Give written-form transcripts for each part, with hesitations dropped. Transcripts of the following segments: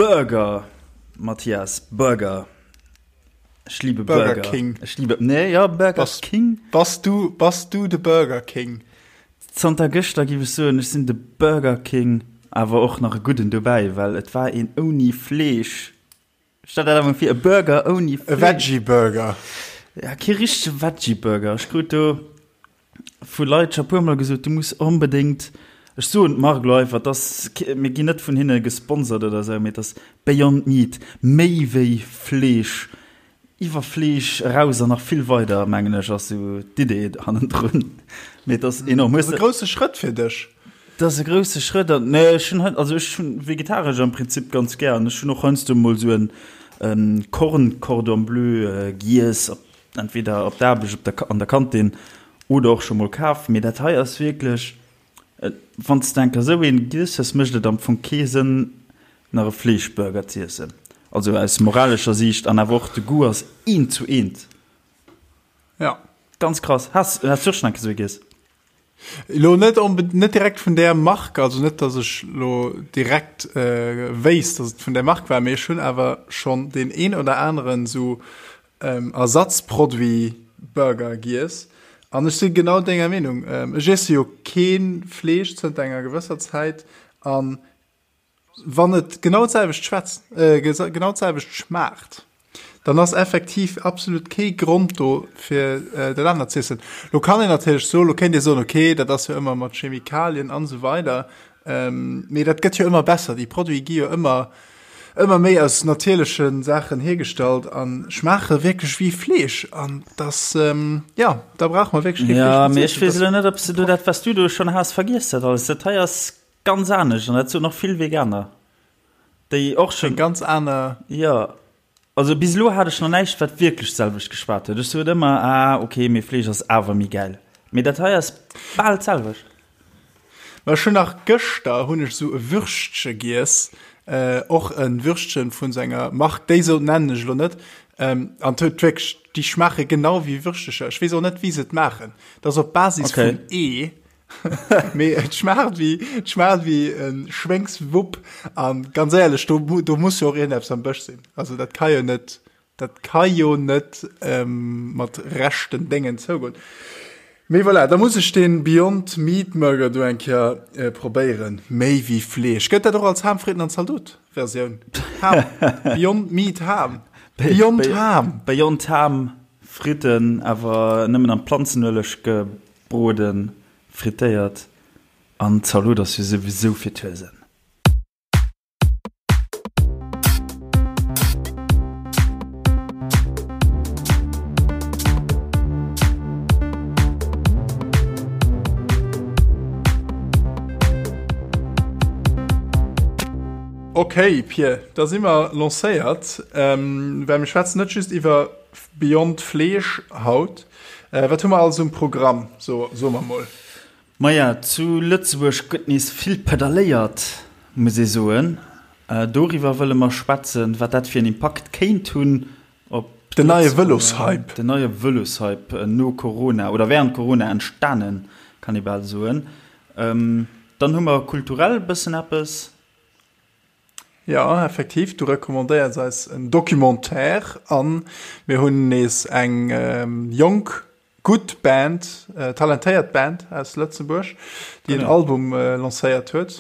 Burger, Mathias, Burger. Ech liebe Burger, Burger King. Ech liebe, nee, ja, Burger Bass, King. Bass du, bass du de Burger King? Zanter gëschter giff ech soen, ech sinn de Burger King, awer och nach e gudden dobäi, well et war een ouni Fleesch. Stell der dat emol vir, e Burger ouni Fleesch. E Veggie Burger. Ja, kee richtege Veggie Burger. Ech krut do vu Leit scho puer mol gesot, du muss onbedéngt, ech soen d'Mark elo einfach, et ass, mir ginn net vun hinne gesponsert oder esou, mee et ass Beyond Meat, méi wéi Fleesch, iwwer Fleesch eraus an nach vill weider, mengen ech, ass esou d'Idee hannendrun. Mee et ass enorm. Dat ass e grousse Schrëtt fir dech. Dat ass e grousse Schrëtt an, nee, ech hunn, also ech hunn vegetaresch am Prinzip ganz gär an ech hunn och heiansdo mol esou en Korn Cordon Bleu giess, op Entweder op der Aarbecht, op der, an der Kantin oder och scho mol kaf. Mee dat hei ass wierklech, wann s de eng Kéier esou een giess hues, mécht et am Fong kee Sënn, nach e Fleeschburger z'iessen. Also aus moralescher Siicht an awer och de Goût ass eent zu eent. Ja. Ganz krass. Has, has du och schonn eng Kéier esou ee giess? Elo net onbe net direkt vun där Mark, also net dass ech lo direkt wéisst, dass et vun där Mark war, mee ech hunn awer schonn deen een oder aneren esou Ersatzproduit Burger giess an ech si genau denger Meenung. Ech iesse jo kee Fleesch zënter enger gewësser Zäit an wann et genau d'selwecht schwätzt, genau d'selwecht schmaacht, dann ass effektiv absolut kee Grond do fir dat anert z'iessen. Lo kann een natierlech soen, lo kéint ee soen, okay, dat ass jo ëmmer mat Chemikalien an esou weider, mee dat gëtt jo ëmmer besser, déi Produite gi jo ëmmer ëmmer méi aus natierleche Saachen hiergestallt a schmaache wierklech wéi Fleesch an dass, jo, da brauche mer wierklech kee Fleesch méi z'iessen. Jo, mee ech weess elo net, ob s de do dat, wat s du do schonn has, vergiess dat alles. Dat hei ass ganz anescht an dat soen och vill Veganer, déi och schonn. Eng ganz aner. Jo, also bis elo hat ech nach näischt, wat wierklech d'selwecht geschwat huet. Ech sot ëmmer, ah ok, mee Fleesch ass awer méi gäil. Mee dat hei ass bal d'selwecht. Ma ech hunn nach gëschter hunn ech esou e Würschtche giess, och e Würschtchen vun esou enger Mark, déi sou nennen ech elo net, an et huet wierklech, déi schmaache genau wéi Würschtecher. Ech weess och net wéi se et maachen, dat ass op Basis vun Ee, mee et schmaacht wéi, et schmaacht wéi e Schwéngswupp an ganz éierlech, do do muss jo och iergendeppes am Bësch sinn, also dat ka jo net Dat ka jo net mat rechten Déngen zougoen. Mee voilà, da muss ech dee Beyond Meat Murger do eng Kéier probéieren. Méi wéi Fleesch. Gëtt dat och als Ham, Fritten an Zaldot Versioun? Ham. Beyond Meat Ham. Beyond Ham. Beyond Ham, Fritten, awer nëmmen am Planzenueleg gebroden, frittéiert. An Zalot ass jo souwisou fir d'Huesen. Ok Pir, da si mer lancéiert, well mir schwätzen net just iwwer Beyond Fleesch haut. Wat hu mer alles um Programm, so soe mer mol? Maja, zu Lëtzebuerg gëtt nees vill pedalléiert, muss ee soen. Doriwwer wëlle mer schwätzen, wat dat fir en Impakt kéint hunn op Den neie Vëloshype. Den neie Vëloshype no Corona oder wärend Corona entstanen, kann ee bal soen. Dann hu mer kulturell e bëssen eppes. Jo, effektiv, du recommandéiers eis en Documentaire an mir hunn nees eng jonk Gutt Band, talentéiert Band aus Lëtzebuerg, déi en Album lancéiert huet.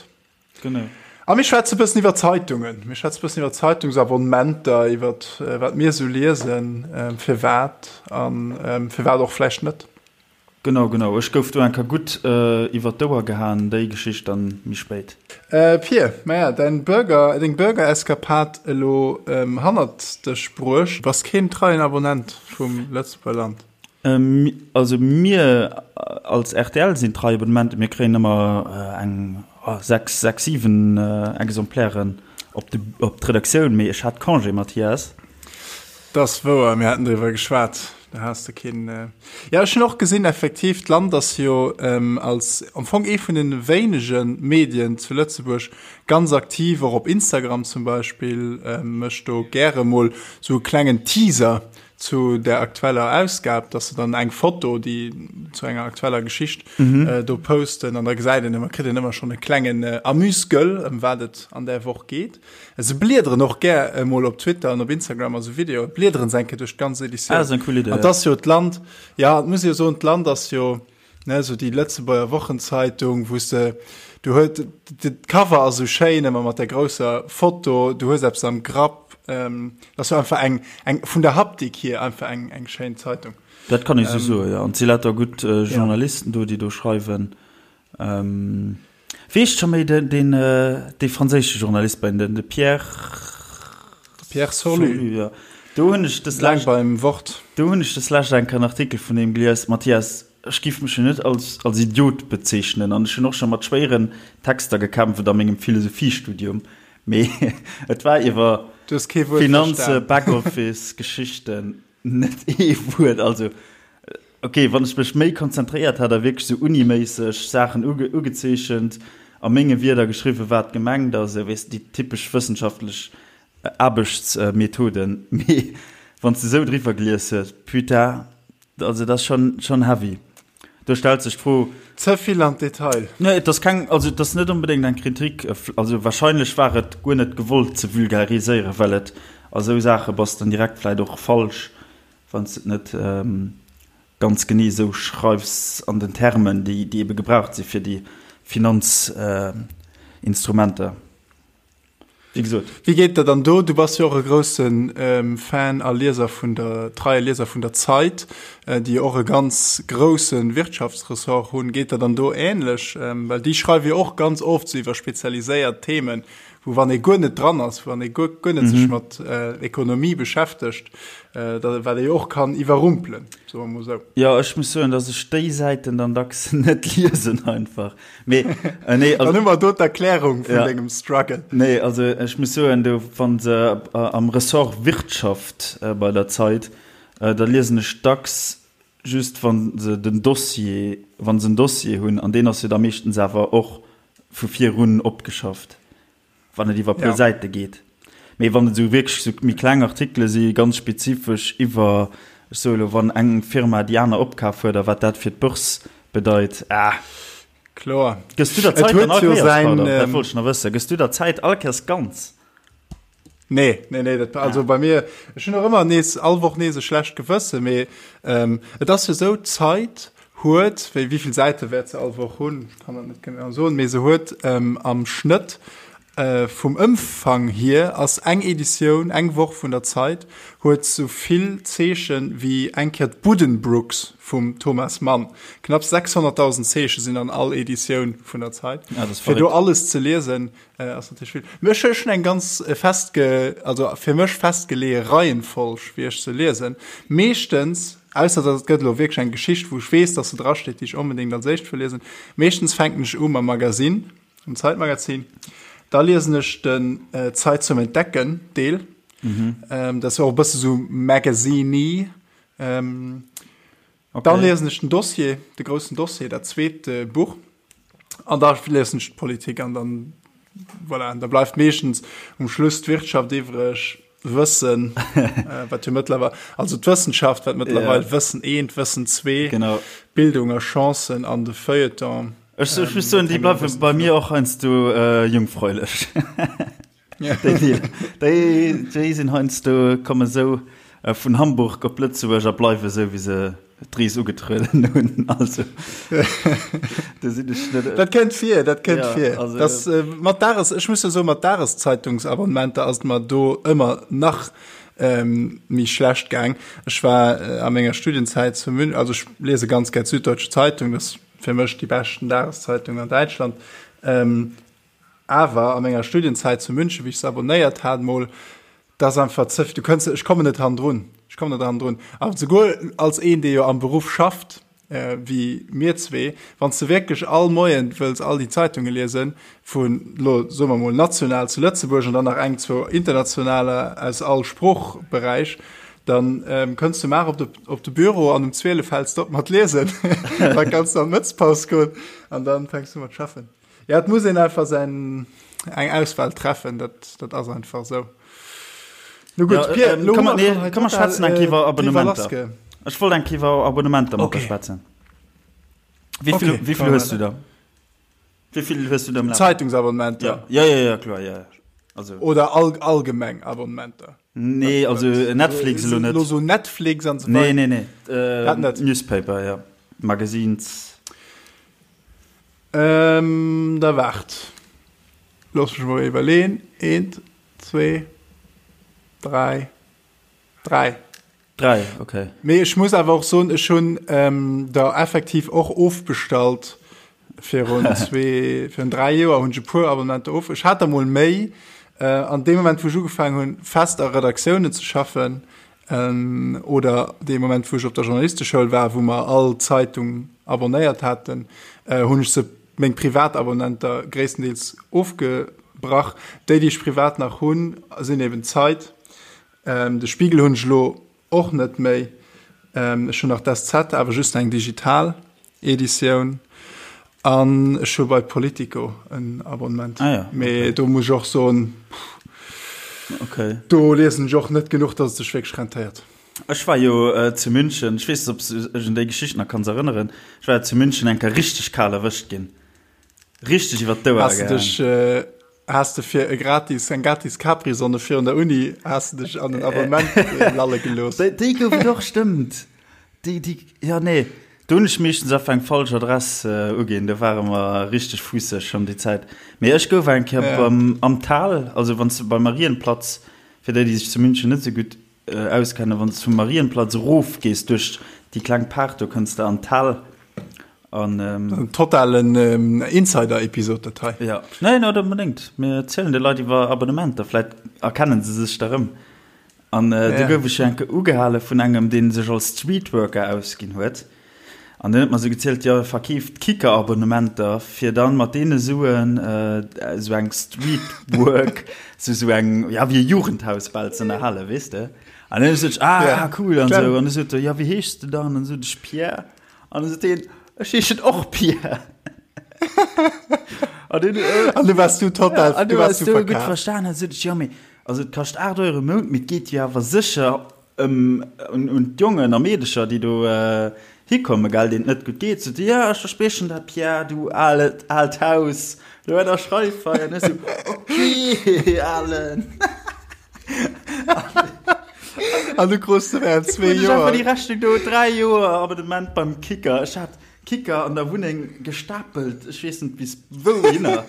Genau. A mir schwätze bëssen iwwer Zeitungen. Mir schwätze bëssen iwwer Zeitungsabonnementer, iwwer wat mir esou liesen, firwat a firwat och vläicht net. Genau, genau. Ech gouf do eng Kéier gutt iwwer d'Ouer gehaen, déi Geschicht dann méi spéit. Pir, maja, däin Burger, deng Burger-Eskapad elo hannert dech bruecht. Bass keen treien Abonnent vum Lëtzebuerger Land? Also mir als rtl sinn trei Abonnementen. Mir kréien ëmmer eng 6, 6, 7 Exemplairen op de, op d'Redaktioun. Mee ech hat Congé, Mathias. Dat ass wouer, mir haten driwwer geschwat. Da has de keen. Jo, ech hunn och gesinn, effektiv, d'Land ass jo als am Fong ee vun de wéinege Medien zu Lëtzebuerg ganz aktiv, och op Instagram zum Beispill, mécht do gäre mol sou e klengen Teaser. Zu der aktueller Ausgab, dass se dann eng Foto, déi zu enger aktueller Geschicht do posten an da gesäit een ëmmer, kritt een ëmmer schonn e klengen Amuse-gueule, ëm wat et an där Woch geet. Se bliederen och gär emol op Twitter an op Instagram a sou Videoe bliederen se eng Kéier duerch d'ganz Editioun. Ah, dat ass eng cool Idee, An 't ass jo d'Land, ja, et muss ee jo soen, d'Land ass jo, ne, sou déi Lëtzebuerger Wochenzeitung, wou s de, du huet, de Cover ass sou schéin ëmmer mat der grousser Foto, du hues eppes am Grapp, ähm, dat ass jo einfach eng, eng vun der Haptik hier einfach eng, eng schéin Zeitung. Dat kann ee sou soen, jo. An et si lauter gutt Journalisten do, déi do schreiwen. Ähm. Weess scho méi den, den, dee franséische Journalist bei den, de Pierre. Pierre Sorlu. Sorlu, ja. Do hunn ech des Laang beim Wort. Do hunn ech des lescht eng Kéier en Artikel vun him gelies. Mathias, ech giff mech jo net als, als Idiot bezeechnen an ech hunn och scho mat schwéieren Texter gekämpft a mengem Philosophiestudium, mee et war iwwer Du hues kee Wuert Finanze, verstan. Backoffice, Geschichten. Net ee Wuert, also ok, wann ech mech méi konzentréiert hat a wierklech sou uniméisseg Saachen ugezeechent, a menge Wierder geschriwwen, wat gemengt ass, esou weess de, déi typesch wëssenschaftlech Aarbechtsmethoden, mee wann s de esou driwwer gelies hues, putain, also dat ass schonn, schonn heavy. Do stellt sech d'Fro. Ze vill an d'Detail. Nee, et ass keng, also et ass net onbedéngt eng Kritik, also wahrscheinlech war et guer net gewollt ze vulgariséieren, well et a sou Saache bass dann direkt vläit och falsch, wann s de et net ganz genee esou schreifs an den Termen, déi ebe gebraucht si fir déi Finanzinstrumenter. Wéi gesot. Wéi geet der dann do? Du bass jo och e grousse Fan a Lieser vun der, treie Lieser vun der Zeit, déi jo och e ganz grousse Wirtschaftsressort hunn. Geet der dann do ähnlech? Well déi schreiwe jo och ganz oft sou iwwer spezialiséiert Themen, wou wann ee guer net dran ass, wann ee guer, guer net sech mat Ekonomie beschäftegt, da wat ee jo och kann iwwerrumpelen, soe mer mol sou. Jo, ech muss soen, datt ech déi Säiten dann dacks net liesen einfach. Mee, äh, nee, also, Dann hu mer do d'Erklärung vun ja. dengem Struggle. Nee, also ech muss soen, du, wann se äh, am Ressort Wirtschaft äh, bei der Zeit, äh, da liesen ech dacks just wann se den Dossier, wann se en Dossier hunn, an deen ass jo da meeschtens awer och vu virun opgeschafft. Wann et iwwer e puer Säite geet. Mee wann et esou wierklech esou méi kleng Artikele si, ganz spezifesch iwwer, ech soe elo, wann eng Firma déi aner opkaf huet a wat dat fir d'Börse bedeit, ah. Kloer. Gëss du der Zäit dann all Kéiers, pardon, dat wollt ech nach wëssen, gëss du der Zäit all Kéiers ganz? Nee, nee, nee, dat, also bei mir, ech hunn och ëmmer nees, all Woch nees e schlecht Gewësse, mee et ass jo esou, d'Zeit huet, wéi, wéi vill Säite wäert se all Woch hunn, ech kann dat net genau soen, mee se huet am Schnëtt vum Ëmfang hier ass eng Editioun, eng Woch vun der Zeit huet sou vill Zeechen wéi eng Kéier d'Buddenbrooks vum Thomas Mann. Knapps 600.000 Zeeche sinn an all Editioun vun der Zeit. Ja, dat ass Fir do verréckt. alles ze liesen, ass natierlech vill. Mee ech hunn eng ganz festge-, also fir mech festgeleeë Reihenfolg, wéi ech se liesen. Meeschtens Ausser dass et gëtt elo wierklech eng Geschicht, wou ech weess, dass se drasteet, déi ech onbedéngt als éischt wëll liesen. Meeschtens fänken ech u mam Magazin, mam Zeitmagazin. Da liesen ech den Zeit zum Entdecken Deel. Dat ass jo och e bësse sou Magazine-y. Dann liesen ech den Dossier, de groussen Dossier, dat zweet Buch. An da liesen ech d'Politik an dann, voilà, an da bleift meeschtens um Schluss d'Wirtschaft iwwreg, Wëssen, wat jo mëttlerweil, also d'Wëssenschaft, wat mëttlerweil ja. Wëssen 1, Wëssen 2, genau. Bildung a Chancen an de Feuilleton. Ech, ech muss soen, déi bleiwe bei mir och heiansdo äh, jungfräulech. Déi, déi, déi sinn heiansdo, komme sou äh, vun Hamburg op Lëtzebuerg a bleiwe sou, wéi se d'Rees ugetrueden hunn. Also, do sinn ech net. Dat kënnt vir, dat kënnt ja, vir. Also, das, äh, mat Dages, ech muss jo soen, mat Dageszeitungsabonnementer ass et mer do ëmmer nach ähm, méi schlecht gaang. Ech war äh, a menger Studienzäit zu München, also ech lese ganz gär d'Süddeutsche Zeitung, das fir mech déi beschten Dageszeitung an Däitschland. Ähm, Awer a menger Studienzäit zu München, wéi ech se abonnéiert hat mol, dat ass einfach ze, du kënns, ech kommen net hannendrun, ech kommen net hannendrun. Awer souguer als een, dee jo am Beruff schafft, wéi mir zwee, wann s de wierklech all Moien wëlls all déi Zeitunge liesen, vun elo soe mer mol national zu Lëtzebuerg an dann nach eng, zwou internationaler aus all Sproochberäich, dann kënns du mar op de, op de Büro an um 12 häls de op mat liesen, da kanns du an d'Mëttspaus goen an dann fänks du mat schaffen. Ja, et muss een einfach säin, eng Auswahl treffen, dat, dat ass einfach esou. No gutt, Ja, Pierre, ähm, lo komm, hu mer nee, schonn hei komm, mer total, schwätzen eng Kéier iwwer äh, Abonnementer. driwwer lassge. Ech wollt eng Kéier iwwer Abonnementer mat der Okay. schwätzen. Wéi vill, Okay, wéi vill komm, hues du weiter. da? Wéi vill hues du da am Lafen? Zeitungsabonnementer. Ja, ja, ja, ja, kloer, ja, ja. Also. Oder all, allgemeng Abonnementer. Nee, also Netflix elo net. Lo so Netflix an so Nee, nee, nee. Äh, Dat net. Newspaper, ja. Magazines. Ähm, da waart. Looss mech mol iwwerleen. Eent, zwee, dräi, dräi. Dräi, okay. Mee ech muss awer och soen, ech hunn ähm, der effektiv och ofbestallt virun zwee, virun dräi Joer hunn ech e puer Abonnementer of. Ech hat der mol méi. Äh, an deem Moment, wou ech ugefaangen hunn, fest a Redaktiounen ze schaffen, ähm, oder dee Moment, wou ech op der Journalisteschoul war, wou mer all Zeitung abonnéiert haten, äh, hunn ech se meng Privatabonnenter gréisstendeels ofgebrach. Déi, déi ech privat nach hunn, sinn eben d'Zeit. De Spiegel hunn ech elo och net méi. Ech hunn nach d'SZ, awer just eng digital Editioun. An ech hu bei Politico en Abonnement. Ah ja, okay. Mee do muss ech och soen, okay. do liesen ech och net genuch, datt et sech wierklech rentéiert. Ech war jo äh, zu München, ech weess net, ob s du dech un déi Geschicht nach kanns erënneren. Ech war jo zu München eng Kéier richteg kal erwëscht ginn. Richteg iwwer d'Ouer Has de dech, gehaang. äh, has de fir e gratis, eng gratis Capri-Sonne virun der Uni, has de dech an en Abonnement lalle gelooss? Déi, déi gouf et och, stëmmt. Déi, déi, ja, nee. Do hunn ech meeschtens einfach eng falsch Adress äh, uginn. Do ware mer richteg fuusseg schonn déi Zäit. Mee ech gouf eng Kéier Ja. beim, am Tal, also wann s de beim Marienplatz, fir déi, déi sech zu München net esou gutt äh, auskennen, wann s de vum Marienplatz erof gees duerch déi kleng Paart, do kënns de an d'Tal. An, ähm, En totalen ähm, Insider-Episod, dat hei. Ja, nee, net onbedéngt. Mir erzielen de Leit iwwer Abonnementer, vläit erkennen se sech da rëm. An äh, do Ja. gouf ech enke ugehale vun engem, dee sech als Streetworker ausginn huet. An deen huet mer sou gezielt, jo, e verkeeft Kicker-Abonnementer, fir dann mat deene Suen äh, sou eng Streetwork, sou sou eng, ja, wéi e Jugendhaus bal ze ënnerhalen, weess de. An dann hunn ech gesot, ah, Ja, cool, an klar. sou. An du sot e, ja, wéi heeschs de dann? An du sot ech, Pierre. An du sot deen, ech heeschen och Pierre. An deen, äh, An du warst du total, ja, an du du warst warst du du gutt verkaaft. verstan. An sot ech, jo, mee, also et kascht 8 Euro im Mount, mee et geet jo awer sécher ëm un, un d'Jongen a Meedecher, déi do äh, hikommen, gell, deenen et net gutt geet. Sot e, ja, ech verspriechen dat, Pierre, du alet, aalt Haus, do ënnerschreif hei. An ech sou, okay, Alen. An du krus de während zwee Ech einfach Joer. déi Rechnung do, 3 Joer Abonnement beim Kicker. Ech hat Kicker an der Wunneng gestapelt, ech weess net bis wouhinner.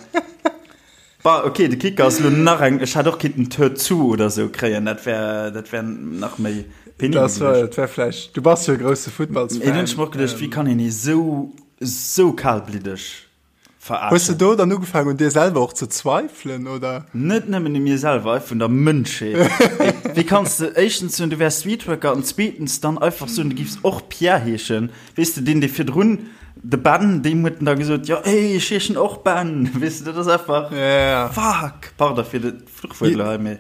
Bah, okay, de Kicker ass elo nach eng, ech hätt och kinnten d'Tür zu oder sou kréien, dat wär, dat wär nach méi penibel Das war, gewiescht. dat wär vläicht, du bass jo e grousse Mee dunn hunn Futtballsfan. ech mer och geduecht, wéi kann een ee sou, sou kalbliddeg Hues de Verarschen. do dann ugefaangen un dir selwer och ze zweifelen, oder? Net nëmmen u mir selwer, einfach un der Mënschheet. Wéi kanns de éischtens soen, du wäers Streetworker an zweetens dann einfach soen, du giffs och Pierre heeschen? Weess de, deen, dee virdrun, de Ben, deem huet en da gesot, jo, hey, ech heeschen och Ben. Weess de, dat ass einfach, Ja. fuck, pardon fir de Fluchwuert elo hei, mee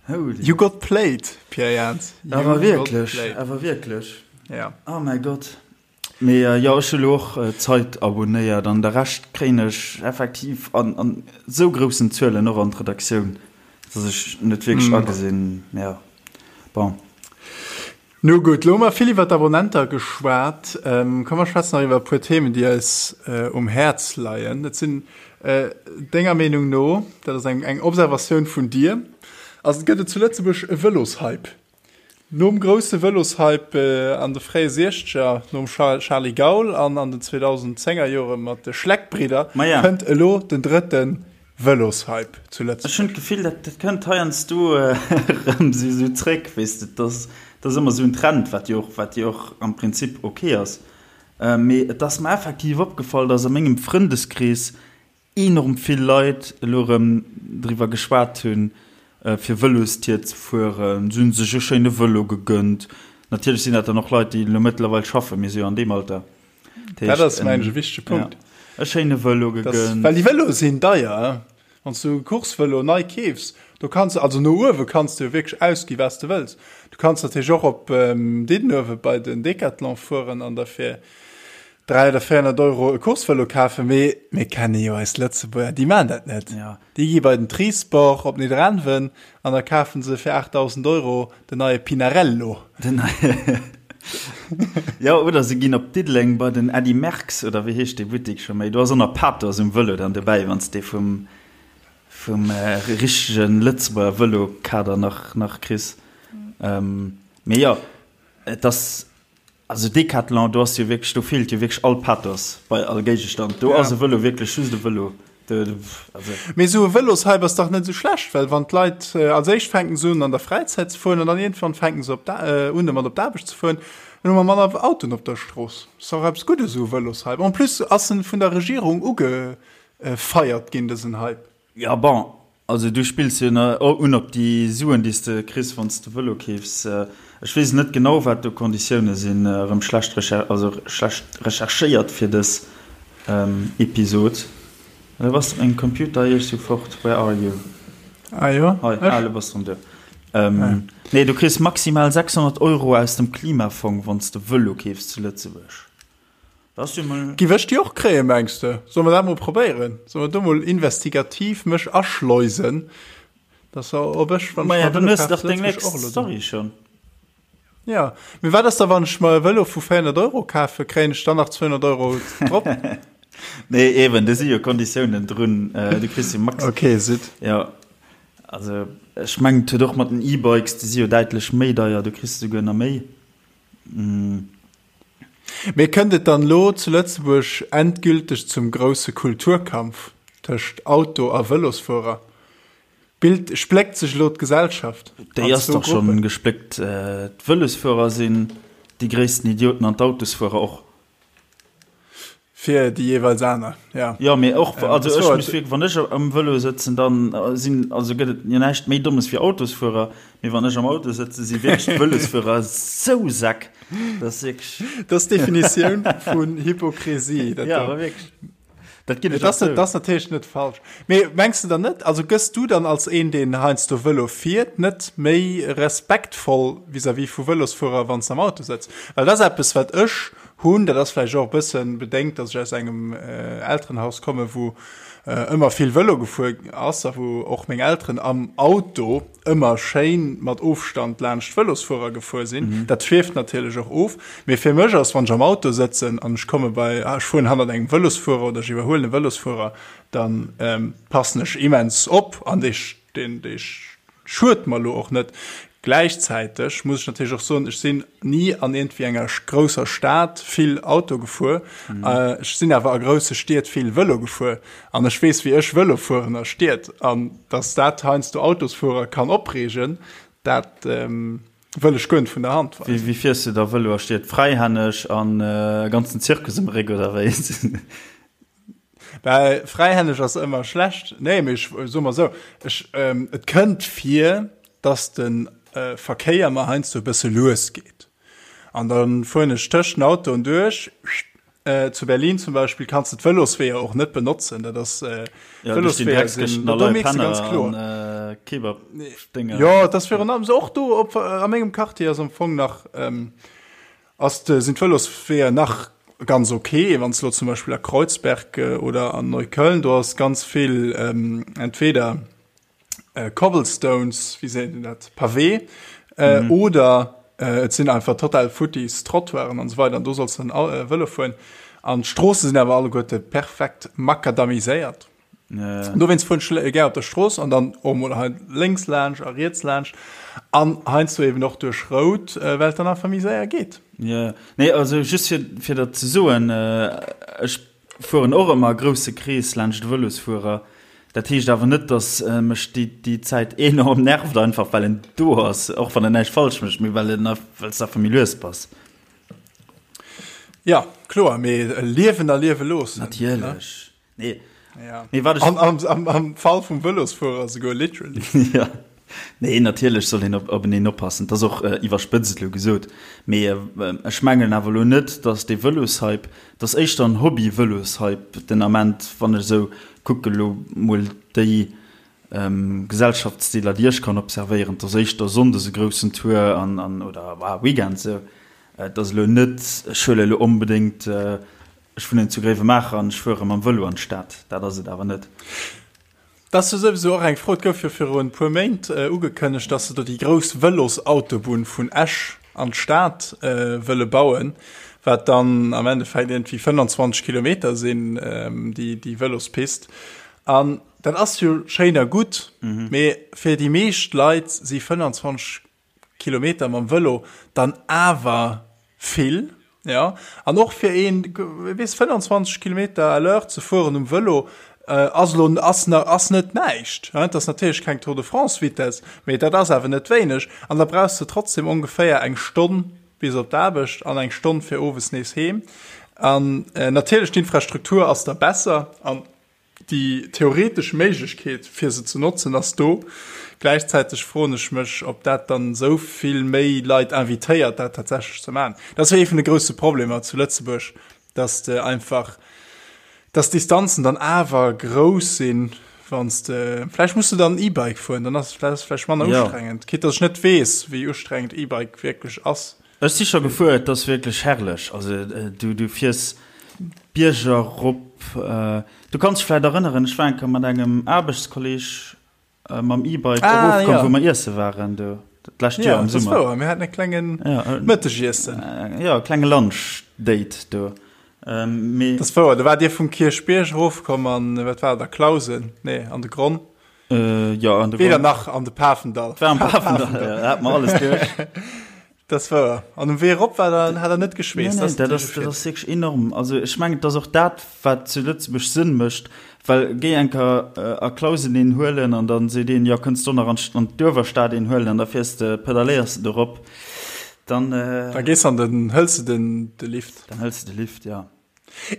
holy. You got played, Pierre Jans. You Awer got wierklech, played. awer wierklech. Ja. Oh mäi Gott. Mee jo, ech hu lo och d'Zeit abonéiert an de Rescht kréien ech effektiv an an sou groussen Zuelen och an d'Redaktioun, dass ech net wierklech agesinn, jo, bon. Nu gutt, lo hu mer vill iwwer d'Abonnenter geschwat. Komm mer schwätzen nach iwwer e puer Themen, déi eis um Häerz leien. Et sinn denger Meenung no, dat ass eng eng Observatioun vun dir, ass, gëtt et zu Lëtzebuerg e Vëloshype? Nom grousse Vëloshype an de fréie Siechzeger, nom Charly Gaul an an den 2010er Jore mat de Schleck-Bridder, kënnt elo den drëtte Vëloshype zu Ech hunn Lëtzebuerg. d'Gefill, dat kënnt heiansdo erëm esou zréck, weess de. Dat ass ëmmer esou en Trend, wat jo och, wat jo och am Prinzip ok ass. Mee et ass mer effektiv opgefall, datt a mengem Frëndeskrees enorm vill Leit elo erëm driwwer geschwat hunn, fir Vëlostier ze fueren. Se hunn sech e schéine Vëlo gegënnt. Natierlech sinn dat dann och Leit, déi elo mëttlerweil schaffen, mir si jo an deem Alter. Dat ass, mengen ech, e wichtege Punkt. Ja, e schéine Vëlo gegënnt. Well déi Vëloe sinn deier. Wann s du e Coursevëlo nei keefs, do kanns de, also no uewe kanns de jo wierklech ausgi wat s de wëlls. Du kanns natierlech och op Diddenuewe bei den Decathlon fueren an der fir. 300 oder 400 Euro e Coursevëlo kafen, mee mir kenne jo eis Lëtzebuerger, déi maan dat net. Ja. Déi gi bei den Trisport op Nidderaanwen an da kafen se fir 8.000 Euro den neie Pinarello. Den neie Jo, oder se ginn op Diddeleng bei den Eddy Merckx, oder wéi heescht dee Buttik scho méi? Do ass och nach Pathos um Vëlo dann dobäi, wann s de vum, vum richtege Lëtzebuerger Vëlo-Kader nach, nach kriss. Mee jo, et ass. Also Decathlon, do ass jo wierklech, do feelt jo wierklech all Pathos bei all Géigestand. Do ass e Vëlo wierklech just e Vëlo. Also. Mee esou e Vëloshype ass dach net esou schlecht, well wann d'Leit als éischt fänken se un an der Fräizäit ze fueren an dann iergendwann fänken se op un domat op d'Aarbecht ze fueren, dann hu mer manner Autoen op der Strooss. Ass dach eppes Guddes esou e Vëloshype. En plus ass en vun der Regierung ugefeiert ginn, dësen Hype. Jo, bon, also du spills jo un op déi Suen, déi s de kriss, wann s de Vëlo keefs. Ech weess net genau, wat do d'Konditioune sinn. Erëm schlecht also schlecht recherchéiert fir dës Episod. Elo bass de op mengem Computer iech sou fort. Where are you? Ah jo, Hei, ah, elo bass de erëm do. Nee, du kriss maximal 600 Euro aus dem Klimafong, wann s de Vëlo keefs zu Lëtzebuerg. Giff ech déi och kréien mengs de? Solle mer dat mol probéieren? Solle mer do mol investigativ mech aschleusen, dass ob ech wann ech mer e Vëlo kafen zu Lëtzebuerg och elo do. Schon. Ja, mee wat ass da wann ech mer e Vëlo vu 400 Euro kafen, kréien ech dann nach 200 Euro drop? Nee eben, do si jo Konditiounen drun, du kriss jo max. Ok, sidd. Jo, also ech mengen et huet och mat den E-Bikes, déi si jo däitlech méi deier, do kriss de souguer nach méi. Mee kënnt et dann elo zu Lëtzebuerg endgülteg zum grousse Kulturkampf tëscht Auto a Vëlosfuerer? Bild, Spléckt sech elo d'Gesellschaft Déi ass dach schonn gespléckt. D'Vëlosfuerer sinn déi gréissten Idioten an d'Autosfuerer och. Fir déi jeeweils aner, ja. Jo, mee och, also ech muss wierklech, wann ech am Vëlo sëtzen, dann sinn, also gëtt et jo näischt méi Dommes wéi Autosfuerer, mee wann ech am Auto sëtzen, si wierklech d'Vëlosfuerer sou Säck, dat ass wierklech. Dat ass d'Definitioun vun Hypokrisie, dat do. Jo, awer wierklech. Dat ginn ech och zou. Dat ass natierlech net falsch. Mee mengs de dann net, also gëss du dann als een, deen heiansdo Vëlo fiert, net méi respektvoll vis-à-vis vu Vëlosfuerer, wann s de am Auto sëtz? Well dat ass eppes, wat ech hunn, dat ass vläicht och e bësse bedéngt, datt ech aus engem Elterenhaus komme wou ëmmer vill Vëlo gefuer ass a wou och meng Elteren am Auto ëmmer schéin mat Ofstand laanscht d'Vëlosfuerer gefuer sinn. Dat schwieft natierlech och of. Mee fir mech ass, wann ech am Auto sëtzen an ech komme bei, ech fueren hannert engem Vëlosfuerer oder ech iwwerhuelen e Vëlosfuerer, da passen ech immens op an dee, deen, dee Schued mer lo och net. Gläichzäiteg muss ech natierlech och soen, ech sinn ni an iergendwéi enger grousser Stad vill Auto gefuer. Ech sinn awer a grousse Stied vill Vëlo gefuer an ech weess, wéi ech Vëlo fueren a Stied. An datt dat heiansdo Autosfuerer kann opreegen, dat wëll ech guer net vun der Hand weisen. Wéi fiers du da Vëlo a Stied? Fräihänneg an e ganzen Zirkus um Réck oder wéi? Well fräihänneg ass ëmmer schlecht. Nee, mee ech soe mer esou, ech, et kënnt vir, dass de Verkéier mer heiansdo e bësse lues geet. An da fueren ech tëscht den Autoen duerch. Zu Berlin zum Beispill kanns de d'Vëlosweeër och net benotzen. Dat ass, d'Vëlosweeër sinn, do mierks de ganz kloer. Jo, et ass virun allem esou, och do op, a mengem Quartier ass am Fong nach, Ass de, sinn d'Vëlosweeër nach ganz ok, wann s de lo zum Beispill a Kreuzberg oder an Neukölln, do ass ganz vill entweder Cobblestones, wéi seet een dat, Pavé, oder et sinn einfach total futtis Trottoiren an esou weider an do solls de dann Vëlo fueren. An d'Stroosse sinn awer alleguerte perfekt makadamiséiert. Ja. Dowéinst fueren ech gär op der Strooss an dann och mol hei lénks laanscht a riets laanscht an heiansdo eben och duerch Rout, well et dann einfach méi séier geet. Ja, nee, also just fir, fir dat ze soen, ech fueren och ëmmer e grousse Krees laanscht de Vëlosfuerer. Dat heescht awer net, datt mech déi, déi Zäit enorm nervt, einfach well en do ass, och wann en näischt falsch mécht, mee well en, well s de einfach méi lues bass. Ja, kloer, mee liewen a liewe loossen. Natierlech. Nee. Ja. Nee, wat ech... Am, am, am, am Fall vum Vëlosfuerer souguer literally. ja. Nee, natierlech soll een op, openeen oppassen. Dat ass och äh, iwwerspëtzt elo gesot. Mee äh, ech mengen awer elo net, dass dee Vëloshype, dat ass éischter en Hobby-Vëloshype den Ament, wann ech esou kucke lo mol déi ähm, Gesellschaftsdeeler, déi ech kann observéieren, dat ass éischter sonndes e groussen Tour an, an oder ah, Weekend esou. Et ass elo net, ech huele elo onbedéngt äh,. Ech wunnen zu Gréiwemaacher an ech fuere mam Vëlo an d'Stad. Dat ass et awer net. Dat ass jo souwisou och eng Fro. Et gouf jo viru e puer Méint ugekënnegt, dass se do déi grouss Vëlosautobunn vun Esch an d'Stad wëlle bauen, wat dann am Endeffekt iergendwéi 25 Kilometer sinn, déi Vëlospist. An dat ass jo schéin a gutt, mee fir déi meescht Leit si 25 Kilometer mam Vëlo dann awer vill, jo. An och fir een, weess, 25 Kilometer à l'heure ze fueren um Vëlo ass elo, ass na, ass net näischt, hein. Et ass natierlech keng Tour de France Vitesse, mee dat ass awer net wéineg. An da brauchs de trotzdem ongeféier eng Stonn bis op d'Aarbecht an eng Stonn fir owes nees heem. An natierlech d'Infrastruktur ass da besser an Déi theoretesch Méiglechkeet, fir se ze notzen, ass do. Gläichzäiteg froen ech mech, ob dat dann esou vill méi Leit invitéiert, dat tatsächlech ze maachen. Dat ass jo ee vun de grousse Problemer zu Lëtzebuerg, dass de einfach, dass d'Distanzen dann awer grouss sinn, wann s de, vläicht muss de dann E-Bike fueren, dann ass et vläicht manner ustrengend, quitte dass ech net weess, wéi ustrengend E-Bike wierklech ass. Ech si scho gefuer, et ass wierklech herrlech. Also du, du fiers Bierger rop. Du kanns dech vläit erënneren, ech war eng Kéier mat engem Aarbechtskolleg mam E-Bike ah, erofkomm, ja. wou mer iesse waren do dat lescht Joer am Summer. Ja, mir haten e klengen ja, Mëttegiessen. Ja, e klenge Lunch-Date do. Ähm, mee dat ass wouer, do waart Dir vum Kierchbierg erofkomm an, wat war dat, a Clausen? Nee, an de Gronn. Äh, ja, an de Weder nach an de Pafendall. War am Pafendall, ja, da hat mer alles duerch. Das war an um Wee erop war dann hat er net geschweesst. Nee, nee, dat ass, dat ass wierklech enorm. Also ech mengen, et ass och dat, wat zu Lëtzebuerg Sënn mécht, well géi eng Kéier äh, a Clausen een huelen an dann seet een, jo kënns du nach an an d'Uewerstad een huelen an da fiers de, pedaléiers de dorop, dann. Äh, da gees an den hëls de den de Lift. Dann hëls de de Lift, ja.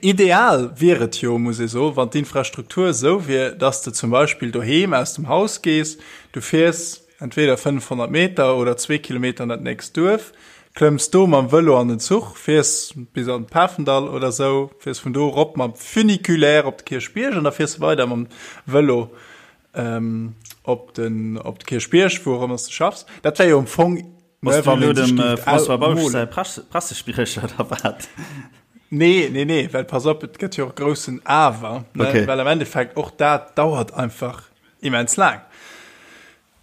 Ideal wier et jo, muss ee soen, wann d'Infrastruktur esou wier, dass de zum Beispill doheem aus dem Haus gees, du fiers entweder 500 Meter oder zwee Kilometer an dat nächst Duerf, klëmms do mam Vëlo an den Zuch, fiers bis an de Pafendall oder esou, fiers vun do erop mam Funiculaire op de Kierchbierg an da fiers de weider mam Vëlo op den op de Kierchbierg, wou och ëmmer s de schaffs. Dat wär jo am Fong Bass du elo dem François Bausch säi Pressespriecher oder wat? Nee, nee, nee, well pass op, et gëtt jo och e groussen Awer, ne? Okay. Well am Endeffekt och dat dauert einfach immens laang.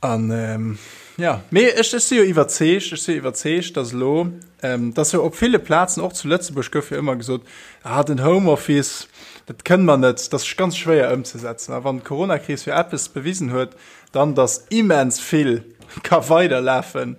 An ähm, ja, mee ech, ech si jo iwwerzeegt, ech si iwwerzeegt, dass elo, ähm, dass jo op ville Plazen, och zu Lëtzebuerg gouf jo ëmmer gesot, ah, den Homeoffice, dat kënne mer net, dat ass ganz schwéier ëmzesetzen. A wann d'Coronakris jo eppes bewisen huet, Dann, dass immens vill ka weiderlafen,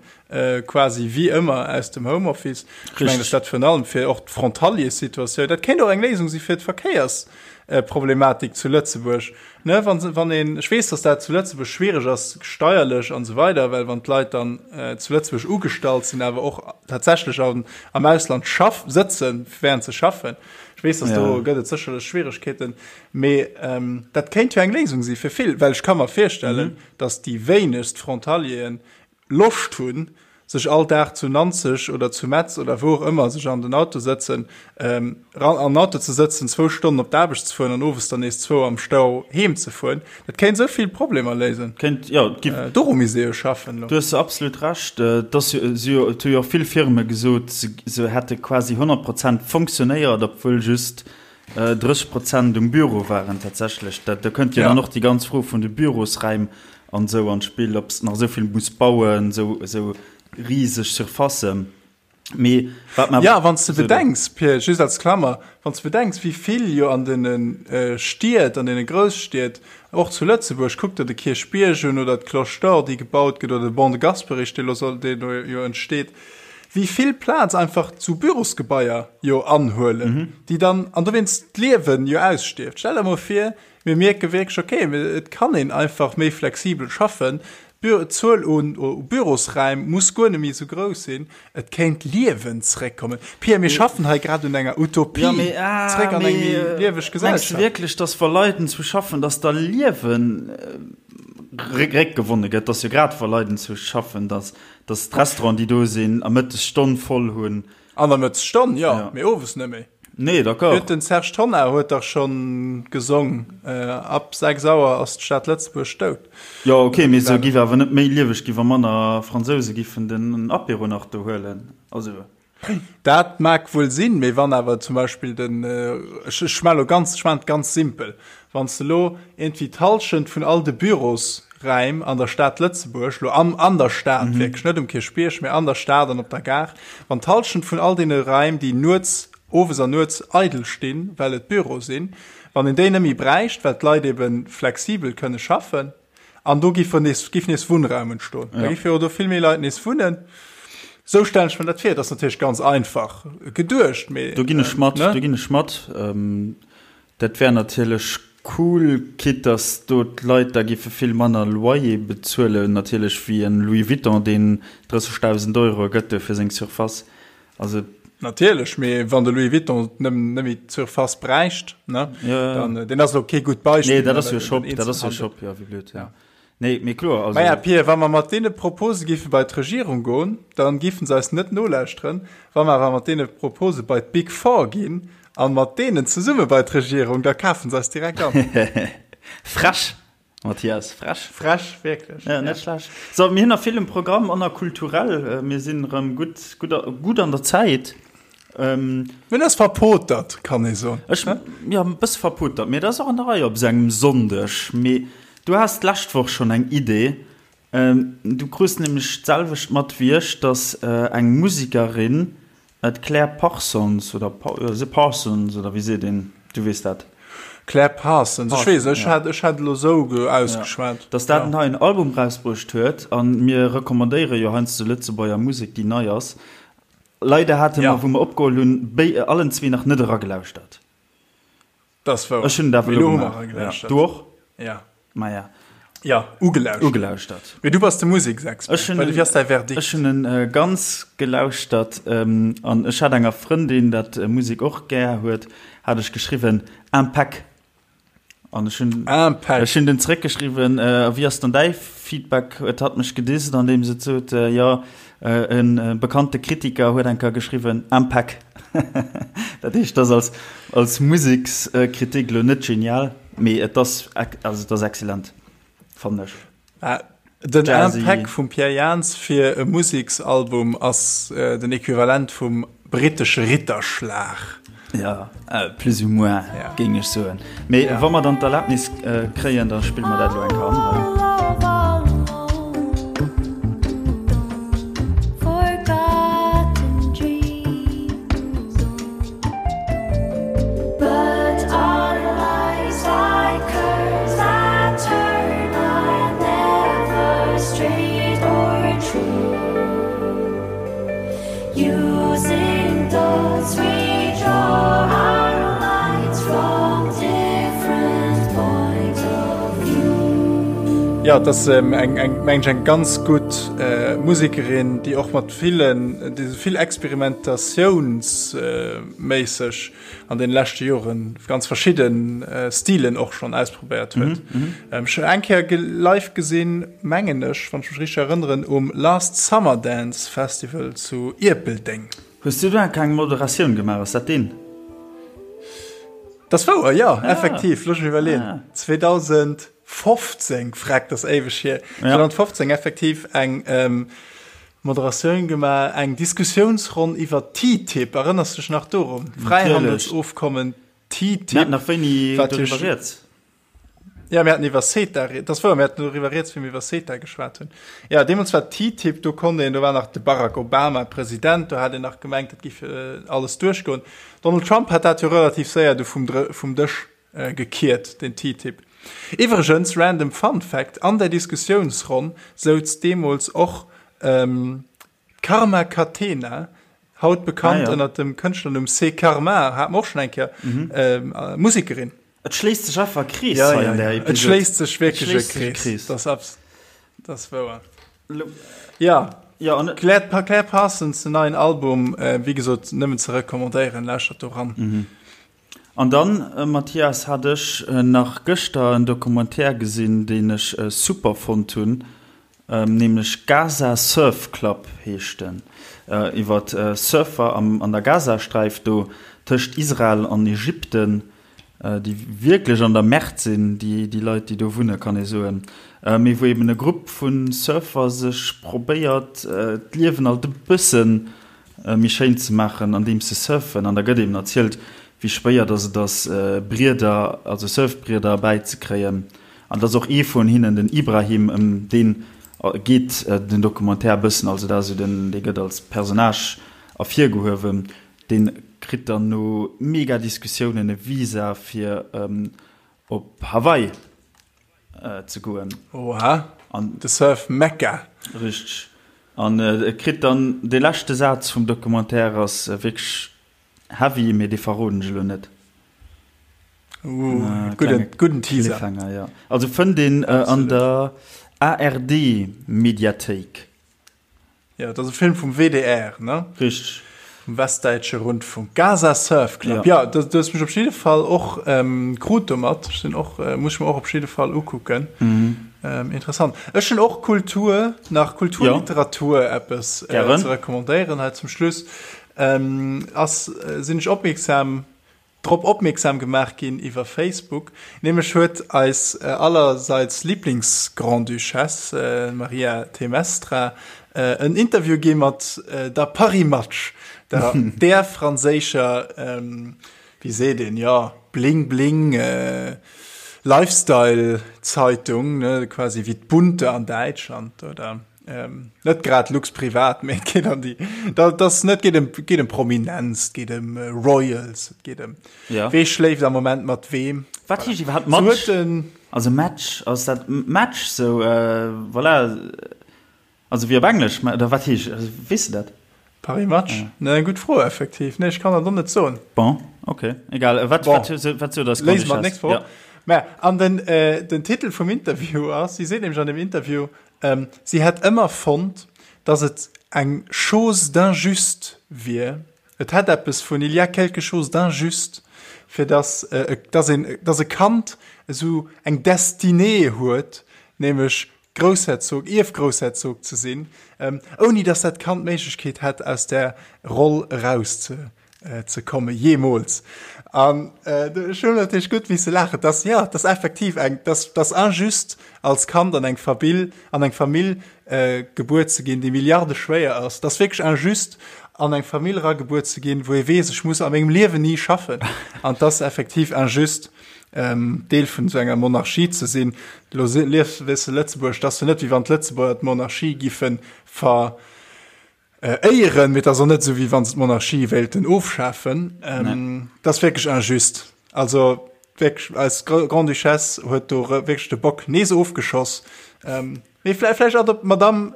quasi wéi ëmmer aus dem Homeoffice. Ech mengen, dass dat virun allem fir och d'Frontaliers-Situatioun, dat kéint och eng Léisung si fir d'Verkéiersproblematik zu Lëtzebuerg, ne, wann, wann een, ech weess, dass dat zu Lëtzebuerg schwierig ass, steierlech an esou weider, well wann d'Leit dann zu Lëtzebuerg ugestallt sinn, awer och tatsächlech am, am Ausland schaff, sëtzen, während se schaffen. Ech weess, dass do gëtt et sécherlech Schwierigkeeten. Mee dat kéint jo eng Léisung si fir vill, well ech ka mer virstellen, datt déi wéinegst Frontalieren Loscht hunn, sech all Dag zu Nanzeg oder zu Metz oder wou och ëmmer sech an den Auto sëtzen, an den Auto ze sëtzen, zwou Stonnen op d'Aarbecht ze fueren an owes dann nees zwou am Stau heem ze fueren. Dat kéint esou vill Problemer léisen. Kéint, jo, et gi. Doru misst ee jo schaffen elo. Du hues absolut Recht. Et ass jo, si jo, et hu jo och vill Firme gesot, se hätte quasi 100 Prozent fonctionnéiert, obwuel just 30 Prozent um Büro waren tatsächlech. Dat, do kënnt jo dann och déi ganz Fro vun de Bürosräim an esou an d'Spill, ob s de nach esou vill muss bauen, esou, esou riseg Surfacen. Mee wat mer. Ja, wann s de bedenks, Pir, just als Klammer, wann s de bedenks, wéi vill jo an deene Stied, an deene Grousstied, och zu Lëtzebuerg, kuck der de Kierchbierg un oder d'Cloche d'Or, déi gebaut gëtt, oder de Ban de Gasperich, dee lo soll, dee do jo entsteet, wéi vill Plaz einfach zu Bürosgebaier jo anhuelen, déi dann, an dowéinst d'Liewen jo ausstierft. Stell der mol vir, mir mierke wierklech, okay, et kann een einfach méi flexibel schaffen, d'Zuel un Bürosräim muss guer net méi esou grouss sinn, et kéint Liewen zréckkommen. Pia, mir schaffen hei grad un enger Utopie, zréck an eng méi lieweg Gesellschaft. Mengs de wierklech, dass wa Leit enzwou schaffen, dass da Liewen réckgewonne gëtt? Dass jo grad wa Leit enzwou schaffen, dass Dass d'Restauranten, déi do sinn, a Mëttesstonn voll hunn. An der Mëttesstonn, jo, mee owes net méi. Nee, d'accord. Huet den Serge Tonnar huet dach schonn gesong, ab 6 Auer ass d'Stad Lëtzebuerg dout. Jo, ok, mee se giff awer net méi lieweg gi wa manner Fransouse giffen den Apéro nach do huelen. Also. Dat mag wuel sinn, mee wann awer zum Beispill den, ech ech schma lo ganz, ech maan et ganz simpel, wann s de lo iergendwéi d'Hallschent vun all de Bürosräim an der Stad Lëtzebuerg, lo am an der Stad wierklech, net um Kierchbierg, mee an der Stad an op der Gare, wann d'Hallschent vun all deene Räim, déi nuets, owes an nuets eidel stinn, well et Büro sinn, wann een déi net méi bräicht, well d'Leit ebe flexibel kënne schaffen, An do giff nees, giff nees Wunnraum entstoen. Da giffe jo do vill méi Leit nees wunnen. Sou stellen ech mir dat vir. Dat ass natierlech ganz einfach geduecht, mee. Do ginn ech mat, do ginn ech mat. Dat wär natierlech cool, quitte dass do d'Leit da giffe vill manner Loyer bezuelen natierlech wéi en Louis Vuitton, deen 30.000 Euro gëtt do fir seng Surface. Also. Natierlech, mee wann de Louis Vuitton net méi d'Surface bräicht, ne, dann, deen ass elo kee gutt Beispill. Nee, dat ass jo e Shop, dat ass jo e Shop, jo, wéi blöd, ja. Nee, mee kloer, also. Maja, Pir, wa mer mat deene Propose géife bei d'Regierung goen, dann géifen se eis net nolauschteren. Wa mer awer mat deene Propose bei d'Big Four ginn an mat deenen zesumme bei d'Regierung, da kafen se eis direkt an. Frech! Mathias, frech. Frech, wierklech. Ja, net schlecht. So, mir hunn nach vill um Programm an nach kulturell. Mir sinn erëm gutt, gutt, gutt an der Zäit. Ähm, Mir hunn eis verpotert, kann ee soen. Ech, ja, e bësse verpotert, mee dat ass och an der Rei op esou engem Sonndeg. Mee du has d'lescht Woch schonn eng Idee. Ähm, du krus nämlech d'selwecht mat wéi ech, dass eng Musekerin D'Claire Parsons, oder se Parsons, oder wéi seet een, du weess dat. Claire Parsons, ech weess, ech hat, ech hat elo esou ausgeschwat. Dass dat en neien Album rausbruecht huet, a mir recommandéiere jo heiansdo Lëtzebuerger Musek, déi nei ass. Leider hate mer, wou mer opgeholl hunn, béi allen zwee nach net eragelauschtert. Dat ass wouer. Ech hunn et awer elo gemaach. Ja. Du och? Ja. Maja. Ja, ugelauschtert. Ugelauschtert. Mee du bass de Museksexpert. Ech hunn en, Wéi ass däi Verdikt? Ech hunn en ganz gelauschtert an ech hat enger Frëndin, dat Musek och gär huet, hat ech geschriwwen, Impec. An ech hunn, Impec. ech hunn den zeréckgeschriwwen, a wéi ass dann däi Feedback? Huet hatt mech gedisst, andeems et sot, jo, E bekannte Kritiker huet eng Kéier geschriwwen, Impec. Dat heescht, dat ass als Musekskritik elo net genial, mee et ass, also et ass excellent, fannen ech. Den Impec vum Pierre Jans fir e Museksalbum ass den Equivalent vum Brittesche Ritterschlag. Ja, plus ou moins, géing ech soen. Mee wa mer dann d'Erlaabnis kréien, da spille mer dat elo eng Kéier an hei. Jo, et ass eng, eng, mengen ech, eng ganz gutt Musekerin, déi och mat villen, déi esou vill experimentatiounsméisseg an den leschte Joren ganz verschidden Stilen och schonn ausprobéiert huet. Ech hunn eng Kéier live gesinn, mengen ech, wann ech mech richteg erënneren, um Last Summer Dance Festival zu Ierpeldeng. Hues du do enk eng Moderatioun gemaach? Ass dat deen? Dat ass wouer, jo, effektiv. Looss mech iwwerleeën, 2015, freck, dat ass éiweg hier, 2015 effektiv eng Moderatioun gemaach, eng Diskussiounsronn iwwer TTIP. Erënners du dech nach dorun? Fräihandelsofkommen TTIP. Mir haten nach wéini doriwwer rieds. Ja, mir haten iwwer CETA, dat ass wouer, mir haten doriwwer rieds, wéi mir iwwer CETA geschwat hunn. Ja, deemools war TTIP, do konnt een, do war nach de Barack Obama President, do hat een nach gemengt, dat géif alles duerchgoen. Donald Trump hat dat jo relativ séier du vum, vum Dësch gekiert, den TTIP. Iwwregens, random Fun Fact, an där Diskussiounsronn souz deemools och D'Karma Catena, haut bekannt ënnert dem Kënschtlernumm C'est Karma, hate mer och schonn eng Kéier, Musekerin. Et schléisst sech einfach e Krees hei an där Episod. Et schléisst sech wierklech e Krees. Dat ass wouer. Jo, Claire Parsons, den neien Album, wéi gesot, nëmmen ze recommandéieren. Lauschtert do ran. An dann, Mathias, hat ech nach gëschter en Documentaire gesinn, deen ech super fonnt hunn, nämlech Gaza Surf Club heescht en, iwwer Surfer an der Gazasträif do tëscht Israel an Ägypten, déi wierklech an der Merde sinn, déi Leit, déi do wunnen, kann ee soen, mee wou eben e Grupp vu Surfer sech probéiert, d'Liewen alt e bëssen. méi schéin ze maachen, andeems se surfen. An da gëtt eben erzielt, wéi schwéier dass et ass, Brieder, also Surfbrieder erbäizekréien. An dass och ee vun hinnen, den Ibrahim, ëm dee geet den Documentaire e bëssen, also dat ass esou den, dee gëtt als Personnage ervirgehuewen, dee kritt dann no mega Diskussiounen e Visa fir op Hawaii ze goen. Oha, de Surf Mekka. Richteg. An e kritt dann, dee leschte Saz vum Documentaire ass wierklech heavy, mee dee verroden ech elo net. Uh, gudden, gudden Teaser. Cliffhanger, ja. Also fënnt een an der ARD-Mediathéik. Jo, et ass e Film vum WDR, ne? Richteg. Vum Westdäitsche Rundfunk. Gaza Surf Club. Ja, ja du hues mech op jidde Fall och ähm, krut domat. Ech sinn och, äh, muss ech mir och op jidde Fall ukucken. Mhm. Ähm, interessant. Ech hunn och Kultur, nach Kulturliteratur ja. eppes äh, ze recommandéieren hei zum Schluss. Ähm, ass, äh, sinn ech opmierksam drop opmierksam gemaach ginn iwwer Facebook. Nämlech huet eis allerseits Lieblings-Grande-Duchesse, Maria Temestra, en Interview gi mat der Paris Match, der där franséischer, wéi seet een, jo, Bling-Bling Lifestyle-Zeitung, ne, quasi wéi d'Bunte an Däitschland, oder? Ähm, net grad Lux privat, mee et geet an déi, dat ass net, geet ëm, geet ëm Prominenz, et geet ëm äh, Royals, et geet ëm ja. wee schléift am Moment mat weem. Wat heescht iwwerhaapt Match? So den, also Match, ass dat Match sou, äh, voilà, also wéi op Englesch, oder wat heescht, also, weess de dat? Paris Match? Ja. Ne, eng gutt Fro effektiv. Nee, ech kann dat och net soen. Bon, okay, egal. Wat, bon. wat, wat, wat sou das Léise mer d'nächst Woch. Ja. Mä, an den, äh, den Titel vum Interview ass, si seet nämlech an dem Interview, Si hätt ëmmer fonnt, datt et eng chose d'injuste wier, et hätt eppes vun il y a quelque chose d'injuste, fir datt, datt een, datt e Kand esou eng Destinée huet, nämlech Groussherzog, Ierfgroussherzog ze sinn, ouni datt dat Kand d'Méiglechkeet hätt, aus där Roll eraus ze ze komme jeemools. An ech hunn natierlech gutt misse laachen, dass, jo, dass effektiv eng, dass, dass injuste als Kand an eng Fabill, an eng Famill gebuer ze ginn, déi milliardeschwéier ass. Dass wierklech injuste an eng Famill eragebuer ze ginn, wou ee weess, ech muss a mengem Liewen ni schaffen. An dass effektiv injuste Deel vun esou enger Monarchie ze sinn. Elo liefs, weess de, Lëtzebuerg, dass jo net wéi wann d'Lëtzebuerger d'Monarchie giffe ver, Éieren, mee et ass och net esou, wéi wa se d'Monarchie wéilten ofschafen. Dat ass wierklech injuste. Also wierklech, eis Grande-Duchesse huet do wierklech de Bock nees ofgeschoss. Mee vläicht adop-, Madame,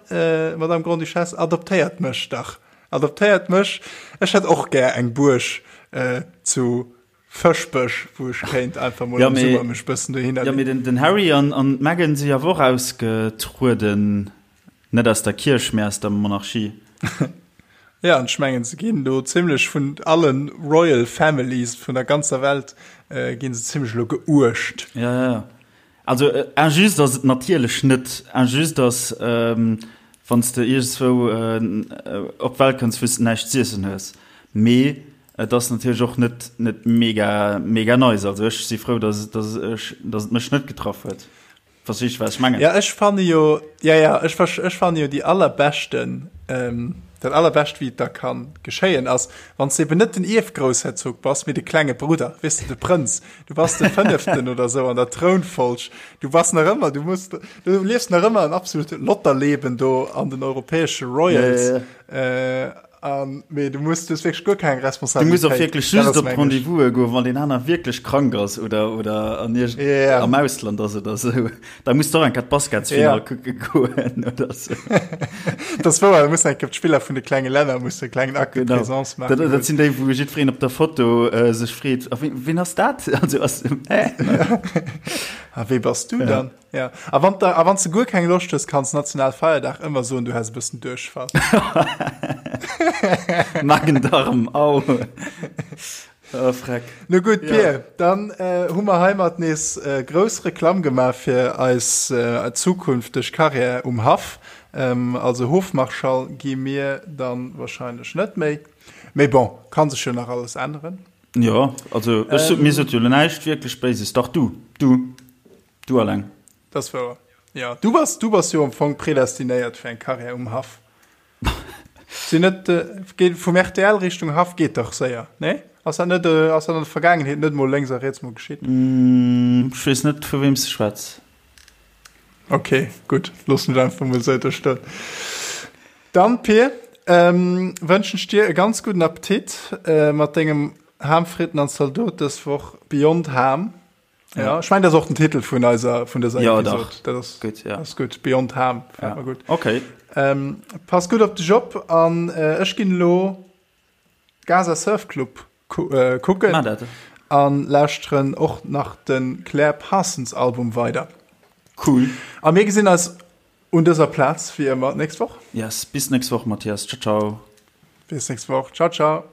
Madame Grande-Duchesse, adoptéiert mech dach. Adoptéiert mech. Ech hätt och gär eng Buerg zu Fëschbech, wou ech kéint einfach mol am Summer mech bëssen dohinner Jo, mee den Harry an d'Meghan si awer och ausgetrueden. Net aus der Kierch, mee aus der Monarchie. Ja, an ech mengen, se ginn do zimlech vun allen Royal Families vun der ganzer Welt ginn se zimlech elo geuecht. Ja, ja, ja. Also injuste ass et natierlech net. Injuste ass, wann s de iergendzwou op d'Welt kënns, wou s de näischt z'iessen hues. Mee et ass natierlech och net, net mega, mega nice. Also ech si frou, dass, dass ech, dass et mech net getraff huet. Verstees du, wat ech mengen? Ja, ech fanne jo, ja, ja, ech, ech fanne jo déi allerbeschten, ähm, dat allerbescht, wéi et da kann geschéien, ass, wann s de eben net den Ierfgroussherzog bass, mee de klenge Brudder, weess de, de Prënz. Du bass de Fënneften oder sou an der Trounfolg. Du bass nach ëmmer, du muss, du liefs nach ëmmer en absolut Lotterleben do an den europäesche Royals. Ja, ja, ja. Äh, An, mee du muss, du hues wierklech guer keng Du muss och Responsabilitéit. wierklech Dat just ass op meng ech. d'Rendez-vouse goen, wann deen aner wierklech krank ass oder, oder an iergend, Ja. am Ausland ass oder sou. Da muss de och eng Kéier d'Basketsfinall Ja. kucke goen oder sou. Dat ass wouer, da muss eng Kéier d'Spiller vun de klenge Länner musse e klengen Acte de Genau. présence Dat, maachen dat goen. sinn déi, wou jiddwereen op der Foto äh, sech freet, a wien, wien ass dat? Also ass, hä? A wee bass du Ja. dann? Ja. A wann a wann s de guer keng Loscht hues, kanns Nationalfeierdag ëmmer soen, du häss e bëssen Duerchfall. Magen-Darm, au. Oh, freck. No gutt, Ja. Pir, dann äh, hu mer heimat nees äh, grouss Reklamm gemaach fir eis äh, zukünfteg Karriär um Haff. Ähm, also Hofmarschall gi mir dann wahrscheinlech net méi. Mee bon, kann sech jo nach alles änneren. Jo, also ech sot, mir sot jo lo näischt wierklech Béises. Dach du, du. Du alleng. Dat ass wouer. Jo, du bass, du bass jo am Fong predestinéiert fir eng Karriär um Haff. Sinn net, geet vum rtl Richtung Haff geet dach séier, nee? Ass dat net, ass dat an der Vergaangenheet net mol lénks a riets mol geschitt? Ech weess net vu weem s de schwätz. Ok, gutt, loossen ech einfach mol esou do stoen. Dann, Pir, wënschen ech dir e ganz gudden Appetit mat dengem Ham, Fritten an Zaldot dës Woch Beyond Ham. Ja, ech mengen, dat ass och den Titel vun eiser, vun dëser Ja, dach. Episod. Dat ass, Gutt, ja. ass gutt. Beyond Ham, gefält Ja. mer gutt. Okay. Ähm, pass gutt op dech op an äh, ech ginn elo Gaza Surf Club ku äh, kucken Maach dat. an lauschteren och nach den Claire Parsons Album weider. Cool. A mir gesinn eis un dëser Plaz wéi ëmmer d'nächst Woch. Yes, bis nächst Woch, Mathias. Ciao, ciao. Bis nächst Woch. Ciao, ciao.